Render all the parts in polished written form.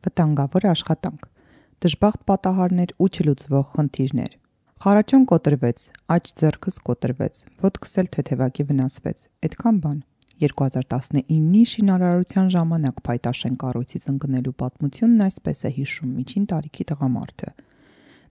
Վտանգավոր աշխատանք, դժբախտ պատահարներ ու չլուծվող խնդիրներ։ Խարաչոն կոտրվեց, աջ ձեռքս կոտրվեց, ոտքս էլ թեթևակի վնասվեց, այդքան բան։ 2019-ի շինարարության ժամանակ Փայտաշեն կառույցից ընկնելու պատմությունն այսպես է հիշում միջին տարիքի տղամարդը։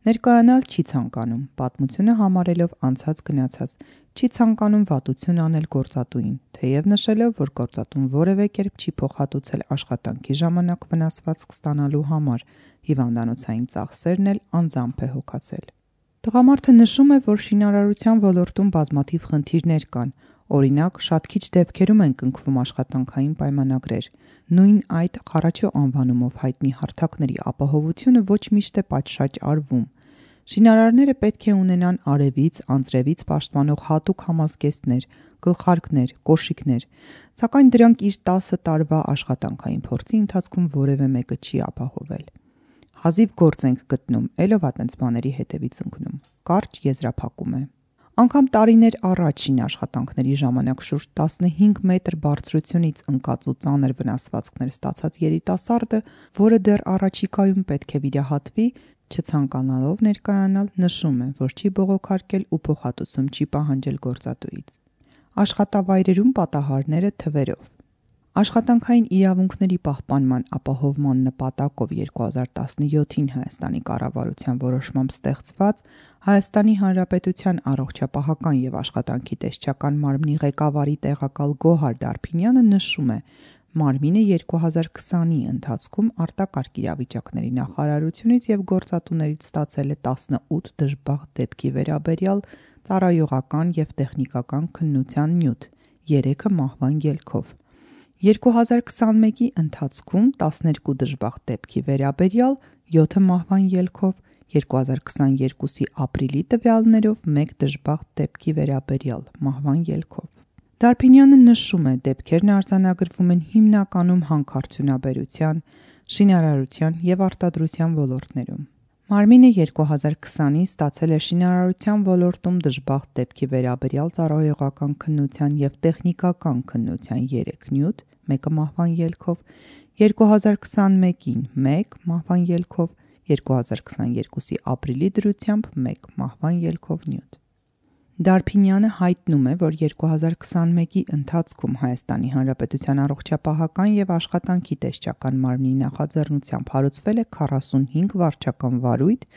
Ներկայանալ չի ցանկանում, պատմությունը համարելով անցած գնացած, չի ցանկանում վատություն անել գործատուին, թեև նշելով, որ գործատուն որևէ կերպ չի փոխհատուցել աշխատանքի ժամանակ վնասվածք ստանալու համար, հիվանդանոցային ծախսերն էլ անձամբ է հոգացել։ Տղամարդը նշում է, որ շինարարության ոլորտում բազմաթիվ խնդիրներ կան, օրինակ, շատ քիչ դեպքերում են կնքվում աշխատանքային պայմանագրեր։ Նույն այդ Խարաչո անվանումով հայտնի հարթակների ապահովությունը ոչ միշտ է պատշաճ արվում։ Շինարարները պետք է ունենան արևից, անձրևից պաշտպանող հատուկ համազգեստներ, գլխարկներ, կոշիկներ, սակայն դրանք իր 10 տարվա աշխատանքային փորձի ընթացքում որևէ մեկը չի ապահովել։ Հազիվ գործ ենք գտնում, էլով ա տենց բաների հետևից ընկնում։ Կարճ եզրափակում է։ Անգամ տարիներ առաջ շինաշխատանքների ժամանակ շուրջ 15 մետր բարձրությունից ընկած ու ծանր վնասվածքներ ստացած երիտասարդը, որը դեռ առաջիկայում պետք է վիրահատվի, չցանկանալով ներկայանալ, նշում է, որ չի բողոքարկել ու փոխհատուցում չի պահանջել գործատուից։ Աշխատավայրերում պատահարները թվերով։ Աշխատանքային իրավունքների պահպանման ապահովման նպատակով 2017-ին Հայաստանի կառավարության որոշմամբ ստեղծված Հայաստանի Հանրապետության առողջապահական և աշխատանքի տեսչական մարմնի ղեկավարի տեղակալ Գոհար Դարփինյանը նշում է, մարմինը 2020-ի ընթացքում արտակարգ իրավիճակների նախարարությունից և գործատուներից ստացել է 18 դժբախտ դեպքի վերաբերյալ ծառայողական և տեխնիկական քննության նյութ, 3-ը մահվան ելքով։ 2021-ի ընթացքում 12 դժբախտ դեպքի վերաբերյալ 7-ը մահվան ելքով, 2022-ի ապրիլի տվյալներով 1 դժբախտ դեպքի վերաբերյալ մահվան ելքով։ Դարփինյանը նշում է, դեպքերն արձանագրվում են հիմնականում հանքարդյունաբերության, շինարարության և արտադրության ոլորտներում։ Մարմինը 2020-ին ստացել է շինարարության ոլորտում դժբախտ դեպքի վերաբերյալ ծառայողական քննության և տեխնիկական քննության 3 նյութ, 1-ը մահվան ելքով, 2021-ին 1 մահվան ելքով, 2022-ի ապրիլի դրությամբ 1 մահվան ելքով նյութ։ Դարփինյանը հայտնում է, որ 2021-ի ընթացքում Հայաստանի Հանրապետության առողջապահական և աշխատանքի տեսչական մարմնի նախաձեռնությամբ հարուցվել է 45 վարչական վարույթ,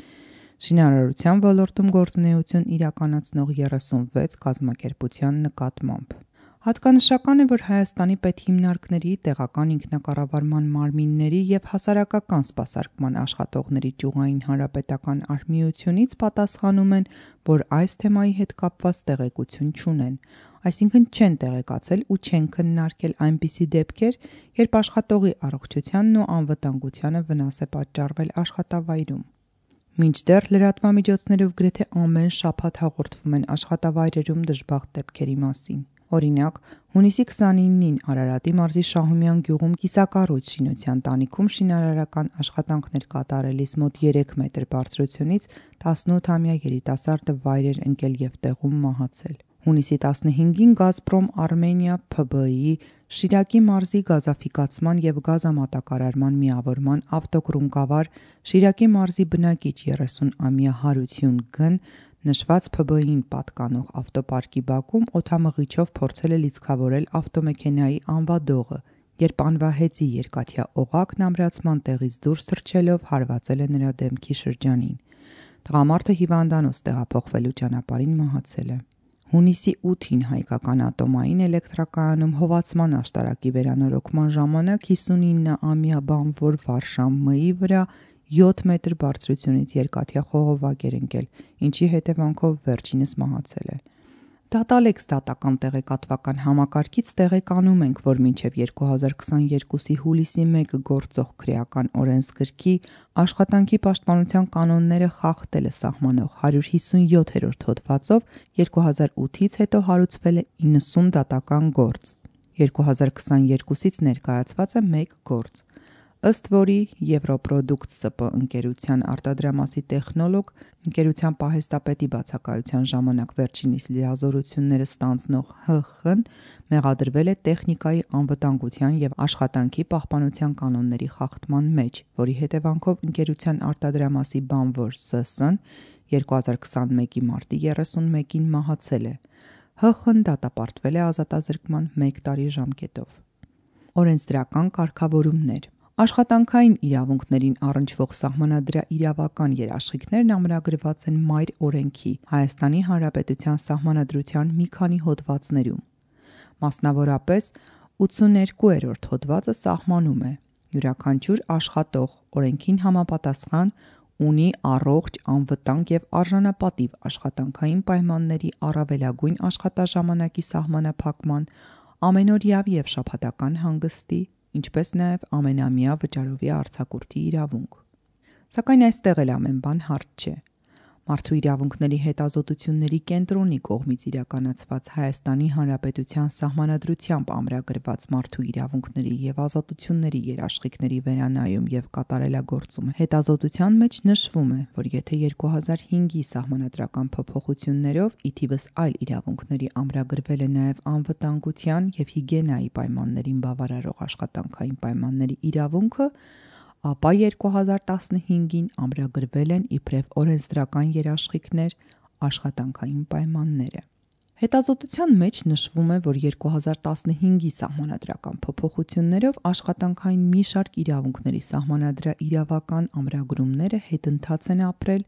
շինարարության ոլորտում գործունեություն իրականացնող 36 կազմակերպության նկատմամբ։ Հատկանշական է, որ Հայաստանի պետհիմնարկների, տեղական ինքնակառավարման մարմինների և հասարակական սպասարկման աշխատողների ճյուղային հանրապետական արհմիությունից պատասխանում են, որ այս թեմայի հետ կապված տեղեկություն չունեն, այսինքն չեն տեղեկացել ու չեն քննարկել այնպիսի դեպքեր, երբ աշխատողի առողջությանն ու անվտանգությանը վնաս է պատճառվել աշխատավայրում։ Մինչդեռ լրատվամիջոցներով գրեթե ամեն շաբաթ հաղորդվում են աշխատավայրերում դժբախտ դեպքերի մասին։ Օրինակ, հունիսի 29-ին Արարատի մարզի Շահումյան գյուղում կիսակառույց շինության տանիքում շինարարական աշխատանքներ կատարելիս մոտ 3 մետր բարձրությունից 18-ամյա երիտասարդը վայր էր ընկել և տեղում մահացել։ Հունիսի 15-ին Գազպրոմ Արմենիա ՓԲ-ի Շիրակի մարզի գազաֆիկացման և գազամատակարարման միավորման ավտոկռունկավար Շիրակի մարզի բնակիչ 30-ամյա Հարություն Գ-ն նշված ՓԲ-ին պատկանող ավտոպարկի բակում օդամղիչով փորձել է լիցքավորել ավտոմեքենայի անվադողը, երբ անվահեծի երկաթյա օղակն ամրացման տեղից դուրս թռչելով հարվածել է նրա դեմքի շրջանին։ Տղամարդը հիվանդանոց տեղափոխվելու ճանապարհին մահացել է։ Հունիսի 8-ին հայկական ատոմային էլեկտրակայանում հովացման աշտարակի վերանորոգման ժամանակ 59-ամյա բանվոր Վարշան Մ-ի վրա 7 մետր բարձրությունից երկաթյա խողովակ էր ընկել, ինչի հետևանքով վերջինս մահացել է։ Դատալեքս դատական տեղեկատվական համակարգից տեղեկանում ենք, որ մինչև 2022-ի հուլիսի 1-ը գործող քրեական օրենսգրքի աշխատանքի պաշտպանության կանոնները խախտելը սահմանող 157-րդ հոդվածով 2008-ից հետո հարուցվել է 90 դատական գործ, 2022-ից ներկայացված է 1 գործ։ Ըստ որի Եվրոպրոդուկտ ՍՊ ընկերության արտադրամասի տեխնոլոգ, ընկերության պահեստապետի բացակայության ժամանակ վերջինիս լիազորությունները ստանձնող ՀԽ-ն մեղադրվել է տեխնիկայի անվտանգության և աշխատանքի պահպանության կանոնների խախտման մեջ, որի հետևանքով ընկերության արտադրամասի բանվոր ՍՍ-ն 2021 մարտի 31-ին մահացել է։ ՀԽ-ն դատապարտվել է ազատազրկման 1 տարի ժամկետով։ Օրենսդրական կարգավորումներ։ Աշխատանքային իրավունքներին առնչվող սահմանադրաիրավական երաշխիքներն ամրագրված են Մայր օրենքի Հայաստանի Հանրապետության Սահմանադրության մի քանի հոդվածներում։ Մասնավորապես 82-րդ հոդվածը սահմանում է. յուրաքանչյուր աշխատող օրենքին համապատասխան ունի առողջ, անվտանգ և արժանապատիվ աշխատանքային պայմանների առավելագույն աշխատաժամանակի սահմանափակման, ամենօրյա և շաբաթական հանգստի, ինչպես նաև ամենամյա վճարովի արձակուրդի իրավունք։ Սակայն այստեղ էլ ամեն բան հարթ չէ։ Մարդու իրավունքների հետազոտությունների կենտրոնի կողմից իրականացված Հայաստանի Հանրապետության Սահմանադրությամբ ամրագրված մարդու իրավունքների և ազատությունների երաշխիքների վերանայում և կատարելագործում հետազոտության մեջ նշվում է, որ եթե 2005-ի սահմանադրական փոփոխություններով ի թիվս այլ իրավունքների ամրագրվել է նաև անվտանգության և հիգիենայի պայմաններին բավարարող աշխատանքային պայմանների իրավունքը, ապա 2015-ին ամրագրվել են իբրև օրենսդրական երաշխիքներ աշխատանքային պայմանները։ Հետազոտության մեջ նշվում է, որ 2015-ի սահմանադրական փոփոխություններով աշխատանքային մի շարք իրավունքների սահմանադրաիրավական ամրագրումները հետընթաց են ապրել,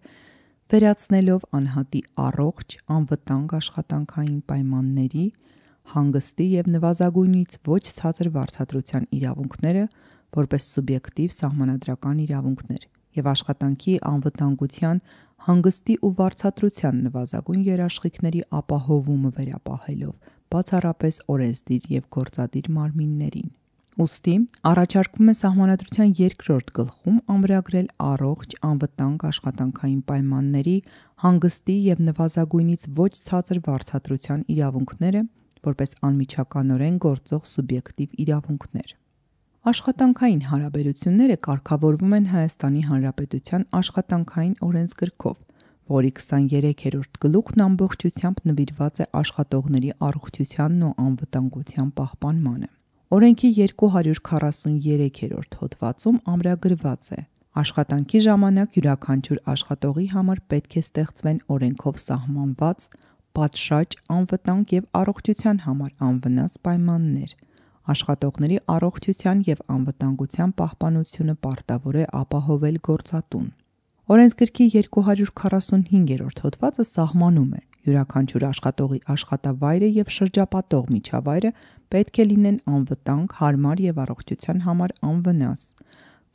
վերացնելով անհատի առողջ, անվտանգ աշխատանքային պայմանների, հանգստի և նվազագույնից ոչ ցածր վարձատրության իրավունքները որպես սուբյեկտիվ սահմանադրական իրավունքներ և աշխատանքի անվտանգության, հանգստի ու վարձատրության նվազագույն երաշխիքների ապահովումը վերապահելով բացառապես օրենսդիր և գործադիր մարմիններին։ Ուստի առաջարկվում է Սահմանադրության 2-րդ գլխում ամրագրել առողջ, անվտանգ աշխատանքային պայմանների, հանգստի և նվազագույնից ոչ ցածր վարձատրության իրավունքները որպես անմիջականորեն գործող սուբյեկտիվ իրավունքներ։ Աշխատանքային հարաբերությունները կարգավորվում են Հայաստանի Հանրապետության Աշխատանքային օրենսգրքով, որի 23-րդ գլուխն ամբողջությամբ նվիրված է աշխատողների առողջությանն ու անվտանգության պահպանմանը։ Օրենքի 243-րդ հոդվածում ամրագրված է. աշխատանքի ժամանակ յուրաքանչյուր աշխատողի համար պետք է ստեղծվեն օրենքով սահմանված, պատշաճ, անվտանգ և առողջության համար անվնաս պայմաններ։ Աշխատողների առողջության և անվտանգության պահպանությունը պարտավոր է ապահովել գործատուն։ Օրենսգրքի 245-րդ հոդվածը սահմանում է. յուրաքանչյուր աշխատողի աշխատավայրը և շրջապատող միջավայրը պետք է լինեն անվտանգ, հարմար և առողջության համար անվնաս,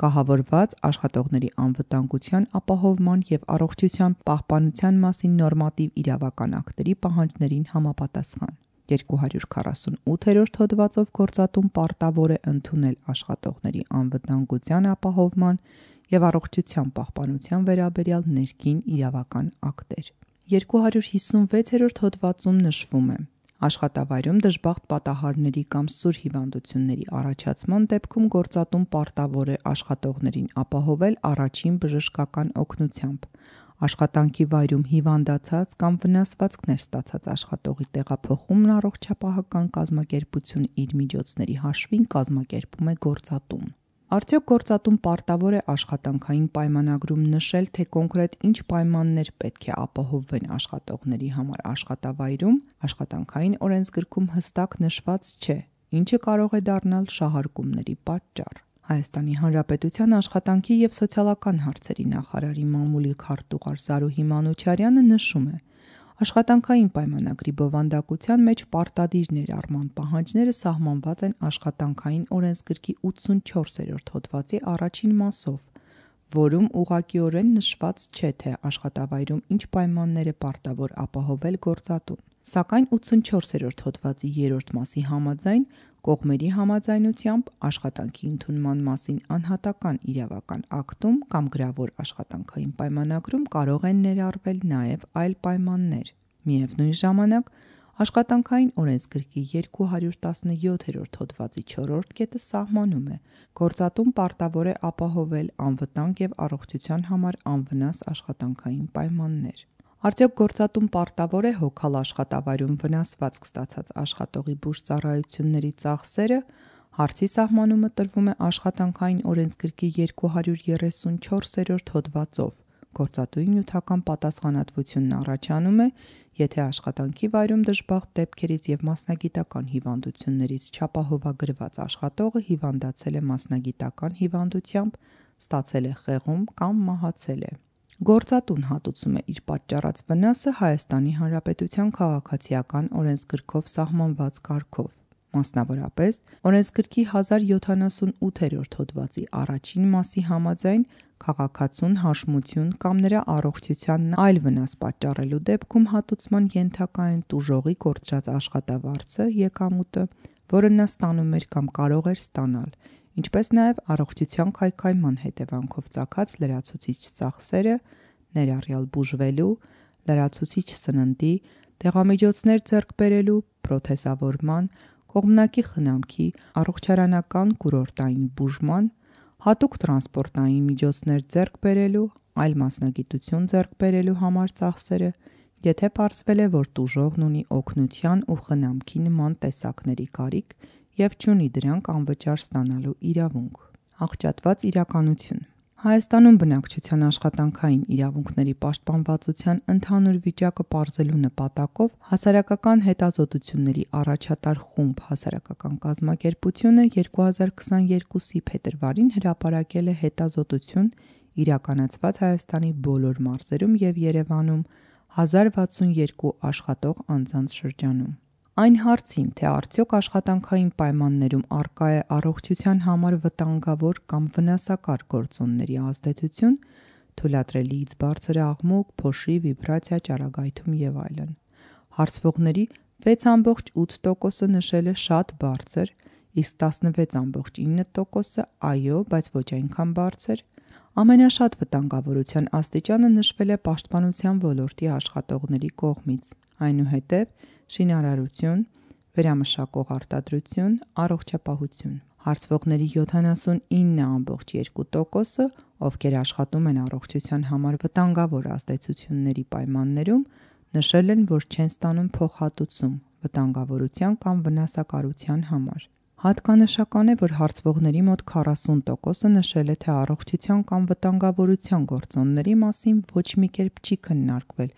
կահավորված աշխատողների անվտանգության ապահովման և առողջության պահպանության մասին նորմատիվ իրավական ակտերի պահանջներին համապատասխան։ 248-րդ հոդվածով գործատուն պարտավոր է ընդունել աշխատողների անվտանգության ապահովման և առողջության պահպանության վերաբերյալ ներքին իրավական ակտեր։ 256-րդ հոդվածում նշվում է. աշխատավայրում դժբախտ պատահարների կամ սուր հիվանդությունների առաջացման դեպքում գործատուն պարտավոր է աշխատողներին ապահովել առաջին բժշկական օգնությամբ, աշխատանքի վայրում հիվանդացած կամ վնասվածքներ ստացած աշխատողի տեղափոխումն առողջապահական կազմակերպություն իր միջոցների հաշվին կազմակերպում է գործատուն։ Արդյոք գործատուն պարտավոր է աշխատանքային պայմանագրում նշել, թե կոնկրետ ինչ պայմաններ պետք է ապահովվեն աշխատողների համար աշխատավայրում, Աշխատանքային օրենսգրքում հստակ նշված չէ, ինչը կարող է դառնալ շահարկումների պատճառ։ Հայաստանի Հանրապետության աշխատանքի և սոցիալական հարցերի նախարարի մամուլի քարտուղար Զարուհի Մանուչարյանը նշում է. աշխատանքային պայմանագրի բովանդակության մեջ պարտադիր ներառման պահանջները սահմանված են Աշխատանքային օրենսգրքի 84-րդ հոդվածի առաջին մասով, որում ուղղակիորեն նշված չէ, թե աշխատավայրում ինչ պայմաններ է պարտավոր ապահովել գործատուն։ Սակայն 84-րդ հոդվածի 3-րդ մասի համաձայն, կողմերի համաձայնությամբ, աշխատանքի ընդունման մասին անհատական իրավական ակտում կամ գրավոր աշխատանքային պայմանագրում կարող են ներառվել նաև այլ պայմաններ։ Միևնույն ժամանակ, Աշխատանքային օրենսգրքի 217-րդ հոդվածի 4-րդ կետը սահմանում է. գործատուն պարտավոր է ապահովել անվտանգ եւ առողջության համար անվնաս աշխատանքային պայմաններ։ Արդյոք գործատուն պարտավոր է հոգալ աշխատավայրում վնասվածք ստացած աշխատողի բուժծառայությունների ծախսերը։ Հարցի սահմանումը տրվում է աշխատանքային օրենսգրքի 234-րդ հոդվածով։ Գործատուի նյութական պատասխանատվությունն առաջանում է, եթե աշխատանքի վայրում դժբախտ դեպքերից և մասնագիտական հիվանդություններից չապահովագրված աշխատողը հիվանդացել է մասնագիտական հիվանդությամբ, ստացել է խեղում կամ մահացել է։ Գործատուն հատուցում է իր պատճառած վնասը Հայաստանի Հանրապետության քաղաքացիական օրենսգրքով սահմանված կարգով։ Մասնավորապես, օրենսգրքի 1078-րդ հոդվածի առաջին մասի համաձայն քաղաքացուն հաշմություն կամ նրա առողջությանն այլ վնաս պատճառելու դեպքում հատուցման ենթակա են տուժողի կորցրած աշխատավարձը (եկամուտը), որը նա ստանում էր կամ կարող էր ստանալ, ինչպես նաև առողջության քայքայման հետևանքով ծագած լրացուցիչ ծախսերը, ներառյալ բուժվելու, լրացուցիչ սննդի, դեղամիջոցներ ձեռք բերելու, պրոթեզավորման, կողմնակի խնամքի, առողջարանական կուրորտային բուժման, հատուկ տրանսպորտային միջոցներ ձեռք բերելու, այլ մասնագիտություն ձեռք բերելու համար ծախսերը, եթե պարզվել է, որ տուժողն ունի օգնության ու խնամքի նման տեսակների կարիք և չունի դրանք անվճար ստանալու իրավունք։ Աղճատված իրականություն Հայաստանում բնակչության աշխատանքային իրավունքների պաշտպանվածության ընդհանուր վիճակը պարզելու նպատակով Հասարակական հետազոտությունների առաջատար խումբ հասարակական կազմակերպությունը 2022-ի փետրվարին հրապարակել է հետազոտություն իրականացված Հայաստանի բոլոր մարզերում և Երևանում 1062 աշխատող անձանց շրջանում։ Այն հարցին, թե արդյոք աշխատանքային պայմաններում առկա է առողջության համար վտանգավոր կամ վնասակար գործոնների ազդեցություն, թույլատրելիից բարձր աղմուկ, փոշի, վիբրացիա, ճառագայթում և այլն։ Հարցվողների 6.8%-ը նշել է շատ բարձր, իսկ 16.9%-ը այո, բայց ոչ այնքան բարձր։ Ամենաշատ վտանգավորության աստիճանը նշվել է պաշտպանության ոլորտի աշխատողների կողմից, այնուհետև շինարարություն, վերամշակող արտադրություն, առողջապահություն։ Հարցվողների 79.2%-ը, ովքեր աշխատում են առողջության համար վտանգավոր ազդեցությունների պայմաններում, նշել են, որ չեն ստանում փոխհատուցում վտանգավորության կամ վնասակարության համար։ Հատկանշական է, որ հարցվողների մոտ 40%-ը նշել է, թե առողջության կամ վտանգավորության գործոնների մասին ոչ մի կերպ չի քննարկվել,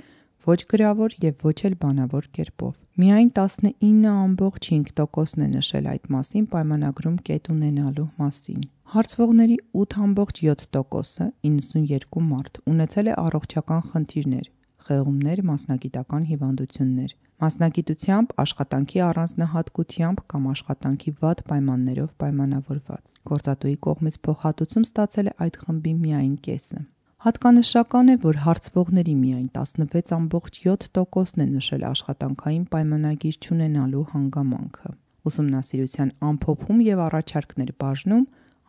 ոչ գրավոր և ոչ էլ բանավոր կերպով։ Միայն 19.5%-ն է նշել այդ մասին պայմանագրում կետ ունենալու մասին։ Հարցվողների 8.7%-ը (92 մարդ) ունեցել է առողջական խնդիրներ, խեղումներ, մասնագիտական հիվանդություններ, մասնագիտությամբ, աշխատանքի առանձնահատկությամբ կամ աշխատանքի վատ պայմաններով պայմանավորված։ Գործատուի կողմից փոխհատուցում ստացել է այդ խմբի միայն կեսը։ Հատկանշական է, որ հարցվողների միայն 16.7%-ն է նշել աշխատանքային պայմանագիր չունենալու հանգամանքը։ Ուսումնասիրության ամփոփում և առաջարկներ բաժնում,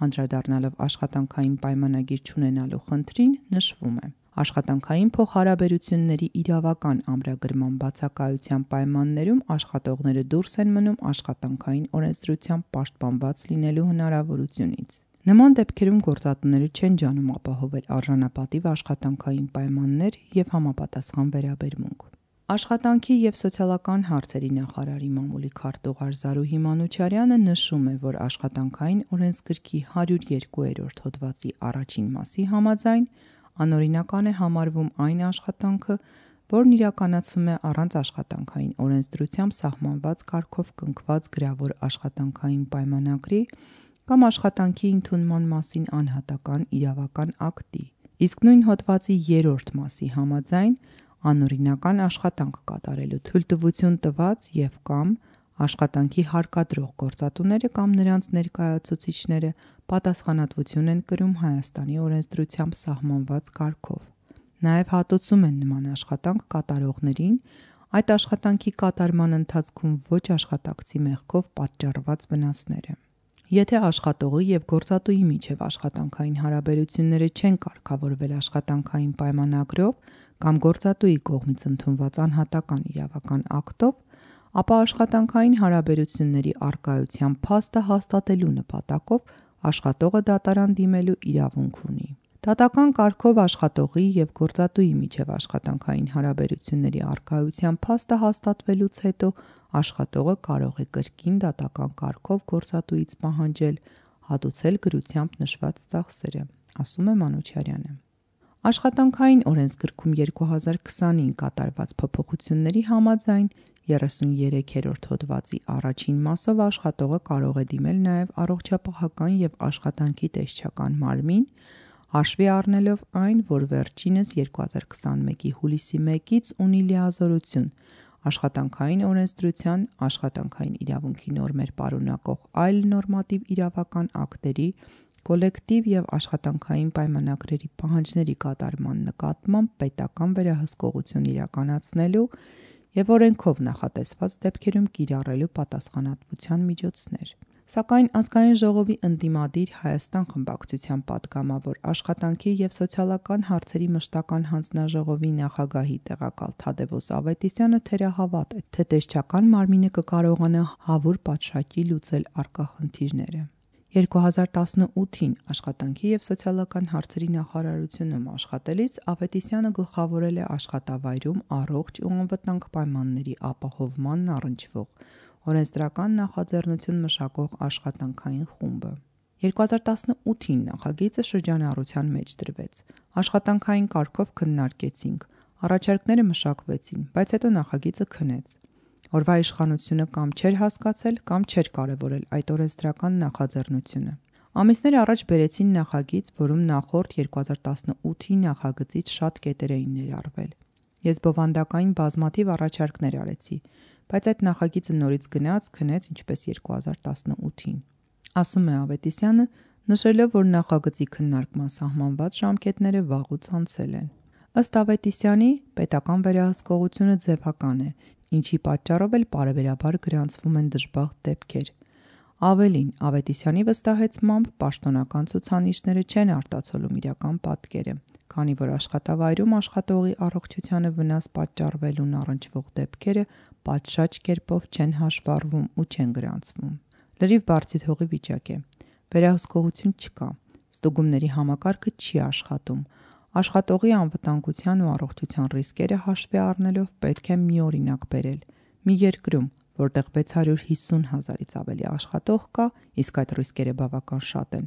անդրադառնալով աշխատանքային պայմանագիր չունենալու խնդրին, նշվում է. աշխատանքային փոխհարաբերությունների իրավական ամրագրման բացակայության պայմաններում աշխատողները դուրս են մնում աշխատանքային օրենսդրությամբ պաշտպանված լինելու հնարավորությունից։ Նման դեպքերում գործատուները չեն ջանում ապահովել արժանապատիվ աշխատանքային պայմաններ և համապատասխան վերաբերմունք։ Աշխատանքի և սոցիալական հարցերի նախարարի մամուլի քարտուղար Զարուհի Մանուչարյանը նշում է, որ աշխատանքային օրենսգրքի 102-րդ հոդվածի առաջին մասի համաձայն անօրինական է համարվում այն աշխատանքը, որն իրականացվում է առանց աշխատանքային օրենսդրությամբ սահմանված կարգով կնքված գրավոր աշխատանքային պայմանագրի կամ աշխատանքի ընդունման մասին անհատական իրավական ակտի, իսկ նույն հոդվածի 3-րդ մասի համաձայն անօրինական աշխատանք կատարելու թույլտվություն տված և կամ աշխատանքի հարկադրող գործատուները կամ նրանց ներկայացուցիչները պատասխանատվություն են կրում Հայաստանի օրենսդրությամբ սահմանված կարգով։ Նաև հատուցում են նման աշխատանք կատարողներին այդ աշխատանքի կատարման ընթացքում ոչ աշխատակցի մեղքով պատճառված վնասները։ Եթե աշխատողի և գործատուի միջև աշխատանքային հարաբերությունները չեն կարգավորվել աշխատանքային պայմանագրով կամ գործատուի կողմից ընդունված անհատական իրավական ակտով, ապա աշխատանքային հարաբերությունների առկայության փաստը հաստատելու նպատակով աշխատողը դատարան դիմելու իրավունք ունի։ Դատական կարգով աշխատողի և գործատուի միջև աշխատանքային հարաբերությունների առկայության փաստը հաստատվելուց հետո աշխատողը կարող է կրկին դատական կարգով գործատուից պահանջել հատուցել գրությամբ նշված ծախսերը, ասում է Մանուչարյանը։ Աշխատանքային օրենսգրքում 2020-ին կատարված փոփոխությունների համաձայն 33-րդ հոդվածի առաջին մասով աշխատողը կարող է դիմել նաև առողջապահական և աշխատանքի տեսչական մարմին, հաշվի առնելով այն, որ վերջինս 2021-ի հուլիսի 1-ից ունի լիազորություն աշխատանքային օրենսդրության, աշխատանքային իրավունքի նորմեր պարունակող այլ նորմատիվ իրավական ակտերի, կոլեկտիվ և աշխատանքային պայմանագրերի պահանջների կատարման նկատմամբ պետական վերահսկողություն իրականացնելու և օրենքով նախատեսված դեպքերում կիրառելու պատասխանատվության միջոցներ։ Սակայն Ազգային ժողովի ընդդիմադիր Հայաստան խմբակցության պատգամավոր, աշխատանքի և սոցիալական հարցերի մշտական հանձնաժողովի նախագահի տեղակալ Թադևոս Ավետիսյանը թերահավատ է, թե տեսչական մարմինը կկարողանա հավուր պատշաճի լուծել առկա խնդիրները։ 2018-ին Աշխատանքի և սոցիալական հարցերի նախարարությունում աշխատելիս Ավետիսյանը գլխավորել է աշխատավայրում առողջ ու անվտանգ պայմանների ապահովմանն առնչվող օրենսդրական նախաձեռնություն մշակող աշխատանքային խումբը։ 2018-ին նախագիծը շրջանառության մեջ դրվեց, աշխատանքային կարգով քննարկեցինք, առաջարկները մշակվեցին, բայց հետո նախագիծը քնեց։ Օրվա իշխանությունը կամ չէր հասկացել, կամ չէր կարևորել այդ օրենսդրական նախաձեռնությունը։ Ամիսներ առաջ բերեցին նախագիծ, որում նախորդ 2018-ի նախագծից շատ կետեր էին ներառվել։ Ես բովանդակային բազմաթիվ առաջարկներ արեցի, բայց այդ նախագիծը նորից գնաց, քնեց ինչպես 2018-ին, ասում է Ավետիսյանը, նշելով, որ նախագծի քննարկման սահմանված ժամկետները վաղուց անցել են։ Ըստ Ավետիսյանի, պետական վերահսկողությունը ձևական է, ինչի պատճառով էլ պարբերաբար գրանցվում են դժբախտ դեպքեր։ Ավելին, Ավետիսյանի վստահեցմամբ, պաշտոնական ցուցանիշները չեն արտացոլում իրական պատկերը, քանի որ աշխատավայրում աշխատողի առողջությանը վնաս պատճառվելուն առնչվող դեպքերը պատշաճ կերպով չեն հաշվառվում ու չեն գրանցվում։ Լրիվ բարձիթողի վիճակ է։ Վերահսկողություն չկա, ստուգումների համակարգը չի աշխատում։ Աշխատողի անվտանգության ու առողջության ռիսկերը հաշվի առնելով պետք է մի օրինակ բերել։ Մի երկրում, որտեղ 650,000-ից ավելի աշխատող կա, իսկ այդ ռիսկերը բավական շատ են,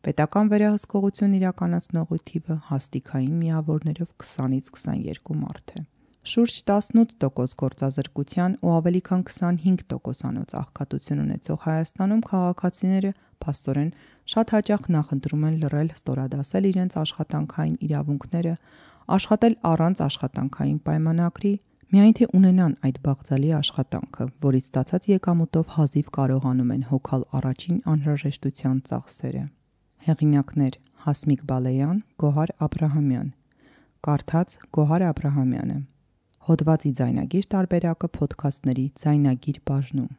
պետական վերահսկողություն իրականացնողի թիվը հաստիքային միավորներով 20-ից 22 մարդ է։ Շուրջ 18% գործազրկության ու ավելի քան 25%-անոց աղքատություն ունեցող Հայաստանում քաղաքացիները փաստորեն շատ հաճախ նախընտրում են լռել, ստորադասել իրենց աշխատանքային իրավունքները, աշխատել առանց աշխատանքային պայմանագրի, միայն թե ունենան այդ բաղձալի աշխատանքը, որից ստացած եկամուտով հազիվ կարողանում են հոգալ առաջին անհրաժեշտության ծախսերը։ Հեղինակներ՝ Հասմիկ Բալեյան, Գոհար Աբրահամյան։ Կարդաց Գոհար Աբրահամյանը։ Հոդվածի ձայնագիր տարբերակը փոդքասթների ձայնագիր բաժնում։